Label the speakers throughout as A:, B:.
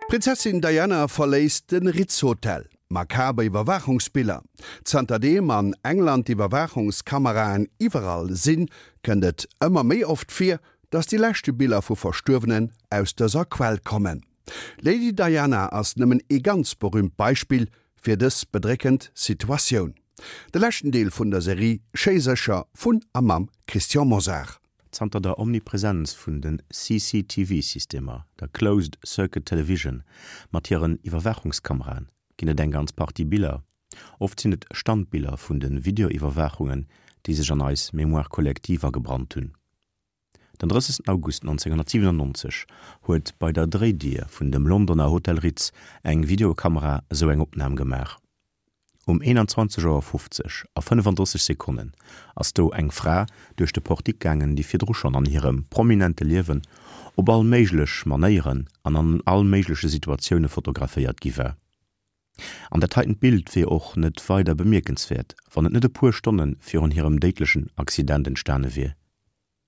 A: D'Prinzessin Diana verléisst de Ritz Hotel. Makaber Iwwerwaachungsbiller. Zanterdeem an England d'Iwwerwaachungskameraen iwwerall sinn, kënnt et ëmmer méi oft vir, datt déi leschte Biller vu Verstuerwenen aus dëser Quell kommen. D'Lady Diana ass nëmmen ee ganz berüümt Beispill fir dës bedréckend Situatioun. De leschten Deel vun der Serie Schéi sécher vun a mam Christian Mosar.
B: Zanter der Omnipresenz vun de CCTV-Systemer, der Closed Circuit Television, mat hiren Iwwerwaachungskameraen, ginn et eng ganz Partie Biller, oft sinn et Standbiller vun de Videoiwwerwaachungen, déi sech an eis Mémoire collective agebrannt hunn. Den 30 August 1997 huet bei der Dréidier vun dem Londoner Hotel Ritz eng Videokamera esou eng Opnam gemaach. Um 21 Auer 50 a 35 Sekonnen ass do eng Fra duerch de Portique gaangen, déi virdru schonn an hirem prominente Liewen op all méiglech Manéieren an an all méigleche Situatioune fotograféiert gi war. An dat heitent Bild wier och net weider bemierkenswäert, wann et net e puer Stonne virun hirem déidlechen Accident entstane wier.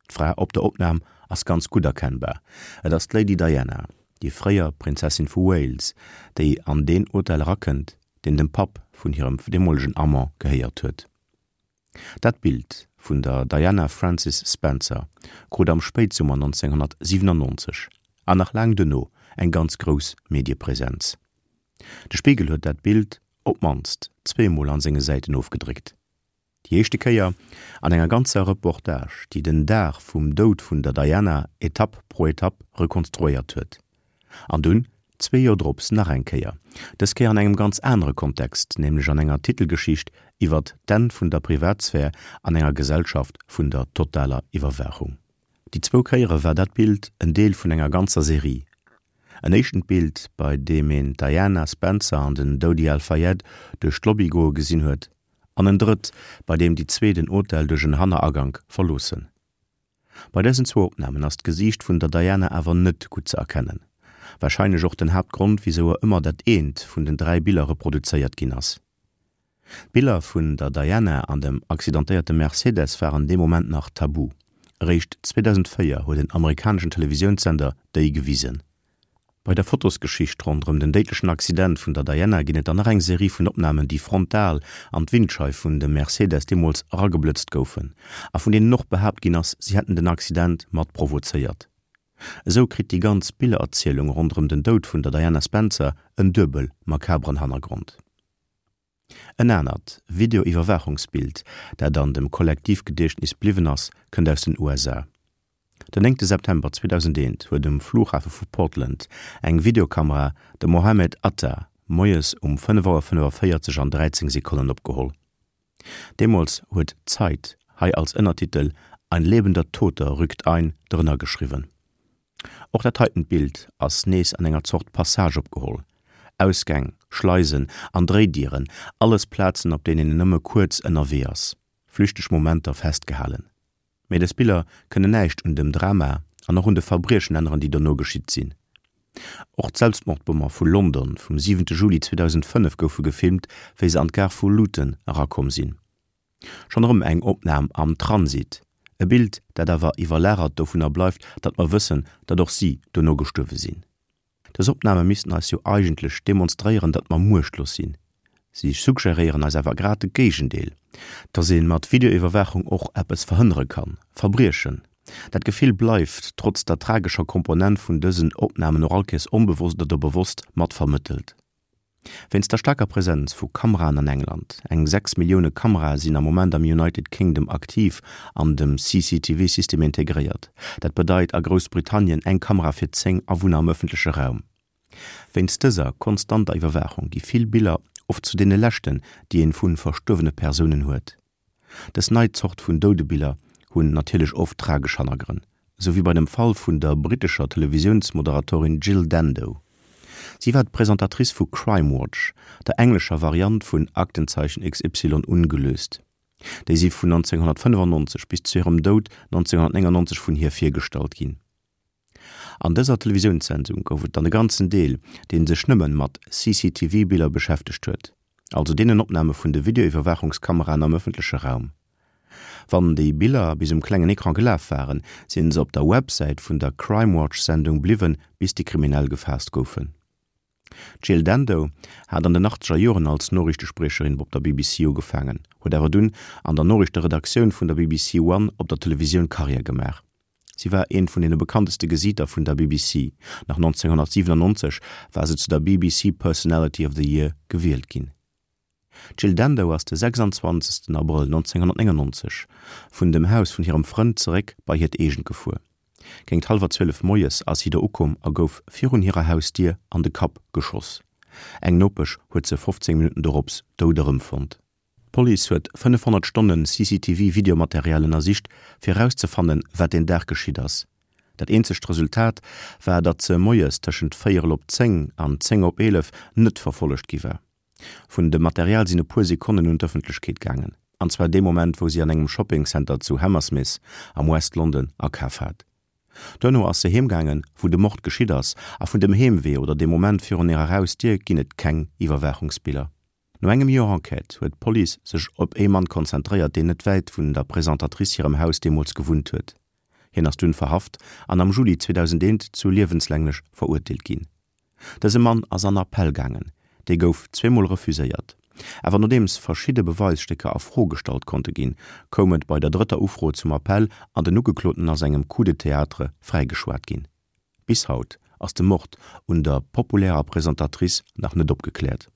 B: D'Fra op der Opnam ass ganz gutt erkennbar, et ass d'Lady Diana, déi fréier Prinzessin vu Wales, déi an deen Hotel erakënnt, deen dem Papp vun hirem deemolegen Amant gehéiert huet. Dat Bild vun der Diana Frances Spencer krut am Spéitsummer 1997 an nach laang duerno eng ganz grouss Mediepresenz. De Spiegel huet dat Bild op d'mannst zweemol an senge Säiten ofgedréckt. Déi éischte Kéier an enger ganzer Reportage, déi den Dag vum Doud vun der Diana Etapp pro Etapp rekonstruéiert huet. An dunn, zwee Joer drops, nach eng Kéier, dës Kéier an engem ganz anere Kontext, nämlech an enger Titelgeschicht iwwert d'Enn vun der Privatsphär an enger Gesellschaft vun der totaler Iwwerwaachung. Déi zwou Kéiere war dat Bild en Deel vun enger ganzer Serie. En éischtent Bild, bei deem een d'Diana Spencer an den Dodi Al-Fayed duerch d'Lobby goe gesinn huet, an en drëtt, bei deem déi zwee den Hotel duerch en Hanneragank verloossen. Bei dësen zwou Opnamen ass d'Gesiicht vun der Diana awer net gutt ze erkennen, warscheinlech och den Haaptgrond, wisou er ëmmer dat eent vun den 3 Biller reproduzéiert ginn ass. D'Biller vun der Diana an dem accidentéierte Mercedes waren dee Moment nach tabu, eréischt 2004 huet en amerikaneschen Televisiounssender déi gewisen. Bei der Fotosgeschicht ronderëm den déidlechen Accident vun der Diana ginn et dann nach eng Serie vun Opnamen, déi frontal an d'Windscheif vun dem Mercedes deemools erageblëtzt goufen a vun deenen och behaapt ginn ass, si hätten den Accident mat provozéiert. Esou kritt déi ganz Billererzielung ronderëm den Doud vun der Diana Spencer en duebel makaberen Hannergrond. En anert Videoiwwerwaachungsbild, dat an dem Kollektivgediechtnis bliwwen ass, kënnt aus den USA. Den néngte September 2001 huet um Flughafe vu Portland eng Videokamera de Mohamed Atta moies um 5 Auer 45 an 13 Sekonnen opgeholl. Deemools huet d'Zeit hei als Ënnertitel Ein lebender Toter rückt ein drënner geschriwwen. Och dat heitent Bild ass nees an enger Zort Passage opgeholl. Ausgäng, Schleisen an Dréidieren, alles Plazen op deenen een nëmme kuerz ënnerwee ass, flüchteg Momenter festgehalen. Mee dës Biller kënnen näischt un dem Drama an och un de Verbriechen änneren, déi dono geschitt sinn. Och d'Selbstmordbommer vu London vum siwente Juli 2005 goufe gefilmt, wéi se an d'Gare vu Luton erakomm sinn. Schonn erëm eng Opnam am Transit, e Bild, dat awer iwwerlagert dovunner bleift, datt mer wëssen, datt och si dono gestuerwe sinn. Dës Opname missten eis jo eigentlech demonstréieren, datt mer muechtlos sinn. Si suggeréieren eis awer grad de Géigendeel, datt ee mat Videoiwwerwaachung och eppes verhënnere kann, Verbriechen. Dat Gefill bleift, trotz der tragescher Komponent vun dësen Opnamen, och allkéiers onbewosst oder bewosst mat vermëttelt. Wéinst der staarker Presenz vu Kameraen an England, eng 6 Millioune Kamerae sinn am Moment am United Kingdom aktiv an dem CCTV-System integréiert, dat bedeit a Groussbritannien eng Kamera fir 10 Awunner am ëffentleche Raum. Wéinst dëser konstanter Iwwerwaachung gi vill Biller oft zu deene leschten, déi een vu verstuerwene Persounen huet. Dës nei Zort vun Doudebiller hunn natierlech oft tragesch Hannergrënn, esou wéi bei dem Fall vun der brittescher Televisiounsmoderatorin Jill Dando. Si war d'Presentatrice vu Crime Watch, der englescher Variant vun Aktenzeichen XY ungelöst. Déi si vun 1995 bis zu hirem Doud 1999 vun hir virgestallt ginn. An dëser Televisiounssendung gouf et dann e ganzen Deel, dee sech nëmmen mat CCTV-Biller beschäftegt huet, also deenen Opname vun de Videoiwwerwaachungskameraen am ëffentleche Raum. Wann déi Biller bis um klengen Ecran gelaf waren, sinn se op der Websäit vun der Crime-Watch-Sendung bliwwen, bis déi Kriminell gefaasst goufen. D'Jill Dando hat an den achtzeger Joren als Noriichtespriecherin op der BBC ugefaangen, huet awer dunn an der Noriichteredaktioun vun der BBC One op der Televisioun Karriär gemaach. Si war eent vun deene bekannteste Gesiiter vun der BBC. Nach 1997 war se zu der BBC Personality of the Year gewielt ginn. D'Jill Dando ass de 26 Abrëll 1999 vun dem Haus vun hirem Frënd zeréck bei hiert eegent gefuer. Géingt hallwer 12 moies ass si do ukomm a gouf virun hirer Hausdier an de Kapp geschoss. Eng Nopesch huet se 15 Minutten dorops dout erëmfonnt. D'Police huet 500 Stonne CCTV-Videomaterial ënnersicht, fir erauszefannen, wat deen Dag geschitt ass. Dat eenzegt Resultat war, datt se moies tëschent véierel op 10 an 10 op 11 net verfollegt gi war. Vun dem Material sinn e puer Sekonnen un d'Ëffentlechkeet gaangen, an zwar dee Moment, wou si an engem Shopping Center zu Hammersmith am West London akaf hat. Duerno ass se heem gaangen, wou de Mord geschitt ass, a vun dem Heemwee oder dem Moment virun hirer Hausdier ginn et keng Iwwerwaachungsbiller. No engem Joer Enquête huet d'Police sech op ee Mann konzentréiert, deen net wäit vun der Presentatrice hirem Haus deemools gewunnt huet. Hien ass dunn verhaft an am Juli 2001 zu liewenslänglech verurteelt ginn. Dëse Mann ass an Appell gaangen, dee gouf zweemol refuséiert. Awer nodeems verschidde Beweisstécker a Fro gestallt konnte ginn, koum et bei der drëtter Ufro zum Appell an den Ugekloten ass engem Coup de théâtre fräigeschwat ginn. Bis haut ass de Mord un der populärer Presentatrice nach net opgekläert.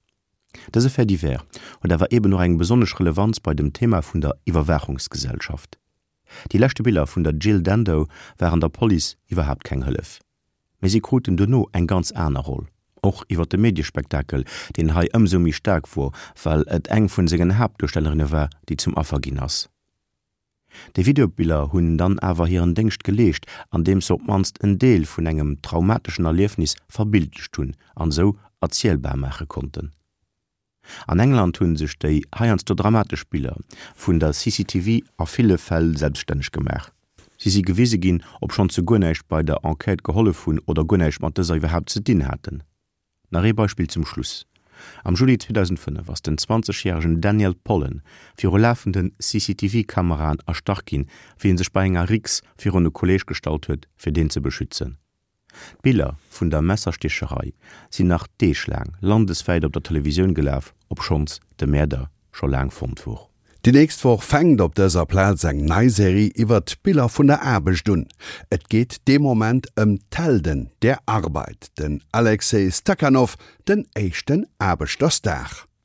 B: Dëse Fait divers huet awer eben och eng besonnesch Relevanz bei dem Thema vun der Iwwerwaachungsgesellschaft. Déi leschte Biller vun der Jill Dando waren der Police iwwerhaapt keng Hëllef. Mee si kruten duerno eng ganz aner Roll, och iwwer de Mediespektakel, deen hei ëmsou méi staark wor, well et eng vun sengen Haaptduerstellerinne war, déi zum Affer ginn ass. Déi Videobiller hunn dann awer hiren Déngscht geleescht, andeems se op d'mannst en Deel vun engem traumateschen Erliefnis verbildlecht hunn an esou erzielbar maache konnten. An England hunn sech déi heiansdo dramatesch Biller vun der CCTV a ville Fäll selbststänneg gemaach. Si si gewise ginn, obschonns se guer näischt bei der Enquête gehollef hunn oder guer näischt mat dëser iwwerhaapt ze dinn haten. Nach ee Beispill zum Schluss, Am Juli 2005 ass den 20 järegen Daniel Pollen viru lafende CCTV-Kameraen erstach ginn, wéi en sech bei enger Riks virun e Kolleeg gestallt huet, fir deen ze beschützen. D'Biller vun der Messersticherei sinn nach deeglaang landeswäit op der Televisioun gelaf, obschonns de Mäerder scho laang fonnt wor.
A: Déi nächst Woch fänkt op dëser Plaz eng nei Serie iwwert d'Biller vun der Aarbecht un. Et geet dee Moment ëm d'Helden der Arbeit, den Alexei Stakhanov, den éischten Aarbechterstar.